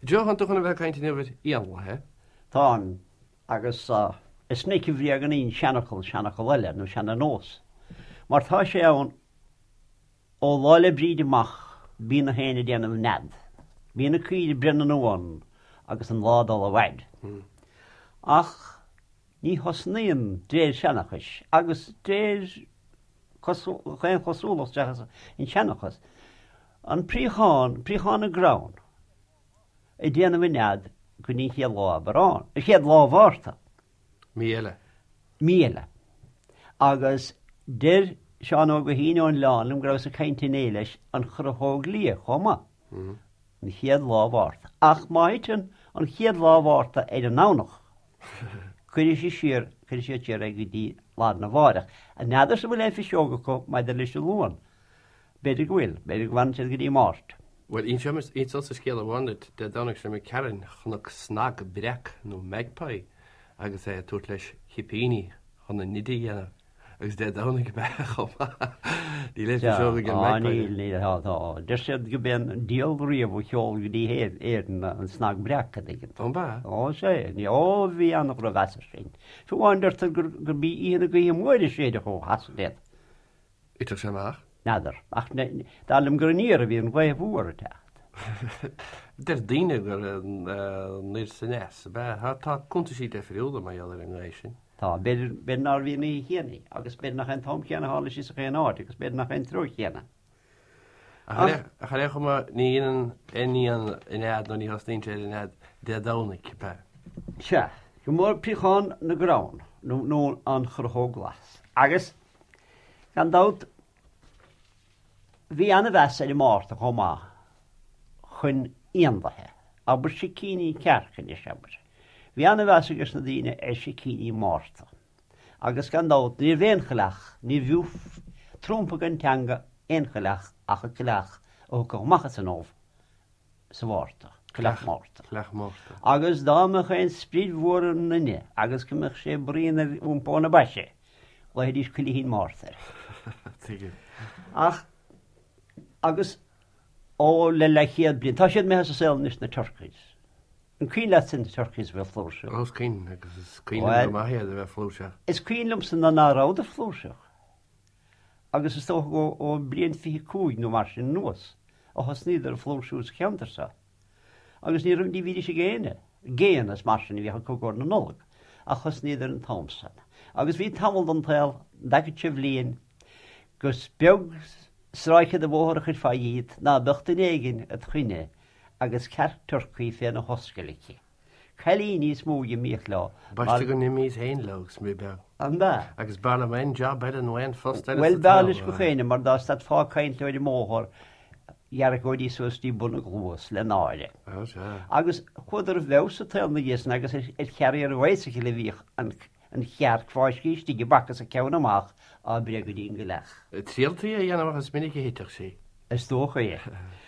Joe, tánn tú chun a bheith ag caint inniu ar éanlaithe. Táim, agus is minic a bhréagnaíonn seanfhocal seanfhocal eile, nó seana-nós. Mar tá sé ann ó Lá 'le Bríde amach, bíonn na héin ag déanamh nead. Bíonn na caoirigh ag breith na n-uan agus an lá ag dul i bhfaid. Ach ní thosnaíonn d'réir seanchais agus d'réir chaon chosúlacht seachas an seanchas, an préachán, préachán na gcrann, ag déanamh a nead go dtí an chéad lá Aibreán, an chéad lá Mhárta. Mí eile. Mí eile. Agus deir Seán Óg Ó hUiginn ón Oileán liom go rabhas ag caint inné leis an chruthóg liath chomh maith. An chéad lá Mhárta. Ach má thiteann an chéad lá Mhárta ar an nDomhnach, cuirfidh sí siar, cuirfidh siad siar é go dtí lá arna mháireach. N'fheadarsa an bhfuil aon phiseog acu maidir leis an Luan. B'fhéidir go bhfuil, b'fhéidir go bhfanann siad go dtí Máirt. Bhuel, inseodsa scéal amháin duit. Dé Domhnaigh seo imigh tharainn, chonac snag breac nó magpie agus é ag tabhairt leis chipíní chun a nide a dhéanamh. Agus Dé Domhnaigh ab ea chomh maith. Níl aon phiseog ag an magpie. Níl, níl, tá, tá. Deir siad go b'é an diabhal riamh a sheol go dtí hÉirinn an snag breac, an dtuigeann tú. Ó, ab ea? Ó, sea. Ó, bhí an-dhrochmheas air sin. Fiú amháin deirtear gurb í oíche na gaoithe móire a séideadh ó Shasana iad. Thitfeadh sé amach? N'fheadar. Ach dar liom gur aniar a bhí an ghaoth mhór ag teacht. Deir daoine gur anoir is aneas ab ea. Tá cuntaisí deifriúla mar gheall ar an ngaoth sin. Tá. B'fhéidir, b'fhéidir nárbh í an oíche chéanna í, agus b'fhéidir nach é an t-am céanna a tharla sí sa chaon áit, agus b'fhéidir nach é an treo chéanna. Ach ar aon chuma, ní dhéanann aon éan a nead nó ní thosnaíonn sé ar a nead Dé Domhnaigh, ab ea? Sea. Go mór préachán na gcrann, nó an chruthóg ghlas. Agus Gan dabht, bhí an-mheas ar an Márta chomh maith chun éanlaithe, abair sicíní cearc anois, abair. Bhí an-mheas ages na daoine ar sicíní Márta. Agus gan dabht, ní raibh aon choileach, ní bhfiú trumpa den teanga aon choileach ach an coileach a thiocfadh amach as an ubh sa Mhárta, Coileach Márta. Coileach Márta. Agus dá mbeadh aon sprid mhór i nduine agus go mbeadh sé braon ar iompó na baise, ghlaofaidís Coileachín Márta air. Tuigim. Ach, agus ó le leathchéad bliain, tá siad imithe as an saol anois na turkeys. An cuimhin leatsa na turkeys a bheith flúirseach? Ó, is cuimhin, agus is cuimhin liom go maith iad a bheith flúirseach. Is cuimhin liomsa ná ná rabhadar flúirseach. Agus is dócha ó bliain 25 nó mar sin anuas a thosnaíodar ag flúirsiú sa cheantar seo. Agus ní raibh, ní bhídís ag éinne, géanna is mar sin a bhíodh acu i gcomhair na Nollag, ach thosnaíodar an t-am san. Agus bhí tamall den tsaol, an dtaca seo bhliain, gur beag stráice de bhóthar a chuirfeá dhíot ná beadh duine éigin id choinne agus cearc turcaí féna hoscail aici. Cailíní is mó a d'imíodh leo. B'aisteach go n-imíos féin leo agus mé beag. An ea? Agus b'fhearr liom aon jab eile nó aon phost eile Bhuel, sa b'fhearr leis gach éinne mar dá stadfá ag caint leo ar an mbóthar, dheargóidís suas dtí bun a gcluas le náire. Ó, sea. Agus chuadar i bhfeabhas sa tsaol na dhiaidh san agus ar charrier bicycle a bhíodh an chearc fáiscthe istigh i bpaca is a ceann amach á breith go dtí an gcoileach. Trialtaí a dhéanamh ach is minic a thiteadh sí. Is dócha é.